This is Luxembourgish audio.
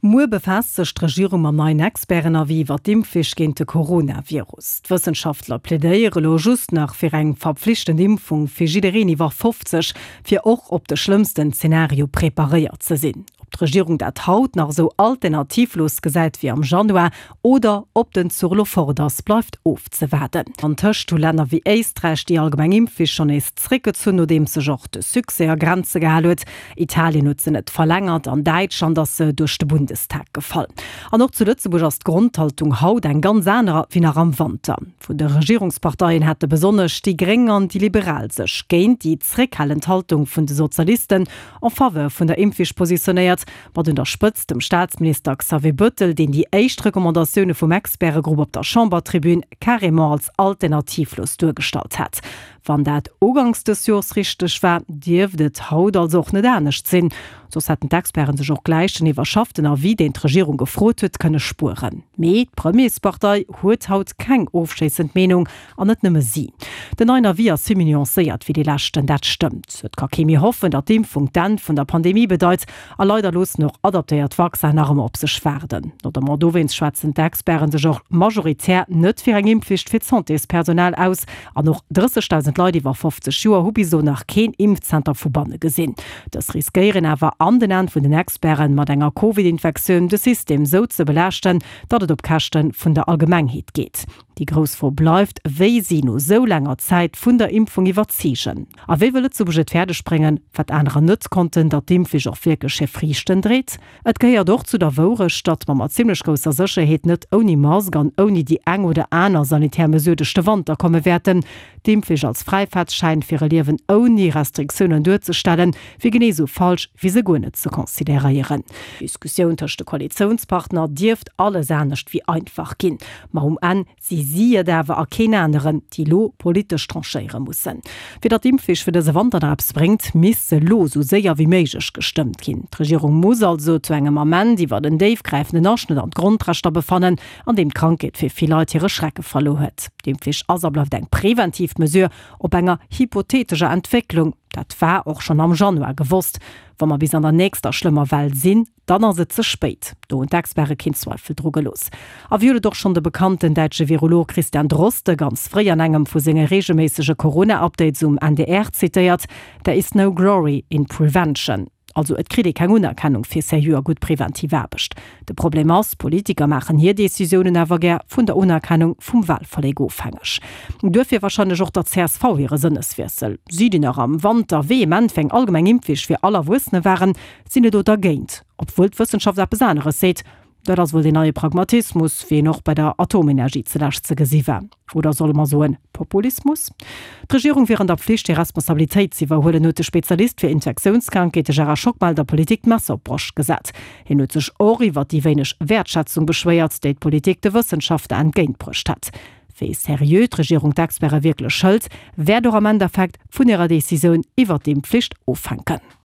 Muer befaasst sech d'Regierung mam neien Experten-Avis iwwer d'Impfflicht géint de Coronavirus. D'Wëssenschaftler plädéiere lo just nach fir eng verpflichtend Impfung fir jiddereen iwwer 50, fir och op de schlëmmsten Zenario preparéiert ze sinn. Ob d'Regierung dat haut nach esou alternativlos gesäit wéi am Januar oder ob den Zuch elo fort ass, bleift ofzewaarden. Antëscht hu Länner wéi Éisträich déi allgemeng Impfflicht schonn nees zréckgezunn, nodeems sech och de Succès a Grenze gehal huet. Italien huet se net verlängert, an Däitschland ass se duerch de Bundestag gefall. An och zu Lëtzebuerg ass d'Grondhaltung haut eng ganz anerer wéi nach am Wanter. Vun de Regierungsparteien hätte besonnesch déi Gréng an déi Liberal sech géint déi zréckhalend Haltung vun de Sozialisten en faveur vun der Impfflicht positionéiert, mat un der Spëtzt dem Staatsminister Xavier Bettel, deen déi éischt Recommandatioune vum Expertegrupp op der Chambertribün carrément als alternativlos duergestallt hat. Wann dat uganks dës Jors richteg war, dierft et haut also och net anescht sinn. Soss hätten d'Experten sech och gläich den iwwerschafften Avis, deen d'Regierung gefrot huet, kënne spueren. Mee d'Premierspartei huet haut keng ofschléissend Meenung, an net nëmme si. Den neien Avis ass vill méi nuancéiert wéi dee leschten, dat stëmmt. Et ka kee méi hoffen, datt d'Impfung d'Enn vun der Pandemie bedeit. A leider loossen och adaptéiert Vaccin nach ëmmer op sech waarden. Notamment dowéinst schwätzen d'Experten sech och majoritär net fir eng Impfflicht fir d'Santéspersonal aus. An och 30.000 Leit iwwer 50 Joer hu bis elo nach keen Impfzenter vu banne gesinn. Dës riskéieren awer an den Aen vun den Experten, mat enger Covid-Infektioun de System sou ze belaaschten, datt et op Käschte vun der Allgemengheet geet. Déi grouss Fro bleift, wéi si no sou laanger Zäit vun der Impfung iwwerzeegen. A wéi wëll Lëtzebuerg et fäerdeg bréngen, wat anerer net konnten, datt d'Impfflicht och wierklech hir Friichten dréit? Et gehéiert och zu der Wourecht, datt mer mat zimmlech grousser Sécherheet net ouni Mask an ouni déi eng oder aner sanitär Mesure duerch de Wanter komme wäerten. D'Impfflicht als Fräifaartsschäin fir e Liewen ouni Restriktiounen duerzestellen, wier genee esou falsch, wéi se guer net ze consideréieren. D'Diskussioun tëscht de Koalitiounspartner dierft alles anescht wéi einfach ginn. Ma um Enn si si et awer a keen aneren, déi elo politesch tranchéiere mussen. Fir datt d'Impfflicht fir dëse Wanter nach eppes bréngt, misst se elo esou séier wéi méiglech gestëmmt ginn. D'Regierung muss also zu engem Ament iwwer en déifgräifenden Aschnëtt an d'Grondrechter befannen, an deem d'Krankheet fir vill Leit hire Schrecke verluer huet. D'Impfflicht ass a bleift eng preventiv Mesure op enger hypotheetescher Entwécklung. Dat war och schonn am Januar gewosst. Wa mer bis an der nächster schlëmmer Well sinn, Dann ass et ze spéit. Do hunn d'Experte keen Zweifel dru gelooss. A wéi huet et och schonn de bekannten däitsche Virolog Christian Drosten ganz fréi an engem vu senge reegelméissege Corona-Updates um NDR zitéiert, There is no glory in prevention. Also et kritt ee keng Unerkennung fir seriö a gutt preventiv Aarbecht. De Problem ass, Politiker maachen hir Decisiounen awer gär vun der Unerkennung vum Walverléck ofhängeg. Duerfir warscheinlech och der csv hire Sënneswiessel. Si, déi nach am Wanter vehement fir eng allgemeng Impfflicht fir all Erwuessene waren, Sinn elo dergéint, obwuel d'Wëssenschaft eppes aneres seet. Dat ass wuel deen neie Pragmatismus, wéi en och bei der Atomenergie zelescht ze gesi war. Oder solle mer soen, Populismus? D'Regierung wier an der Pflicht, hir Responsabilitéit z'iwwerhuelen, huet de Spezialist fir Infektiounskrankheete Gérard Schockmel der Politik d'Messer op d'Broscht gesat. Hien huet sech och iwwer déi wéineg Wäertschätzung beschwéiert, déi d'Politik de Wëssenschaftler entgéintbruecht hätt. Wéi seriö d'Regierung d'Experte wierklech hëlt, wäert och am Endeffekt vun hirer Decisioun iwwer d'Impfflicht ofhänken.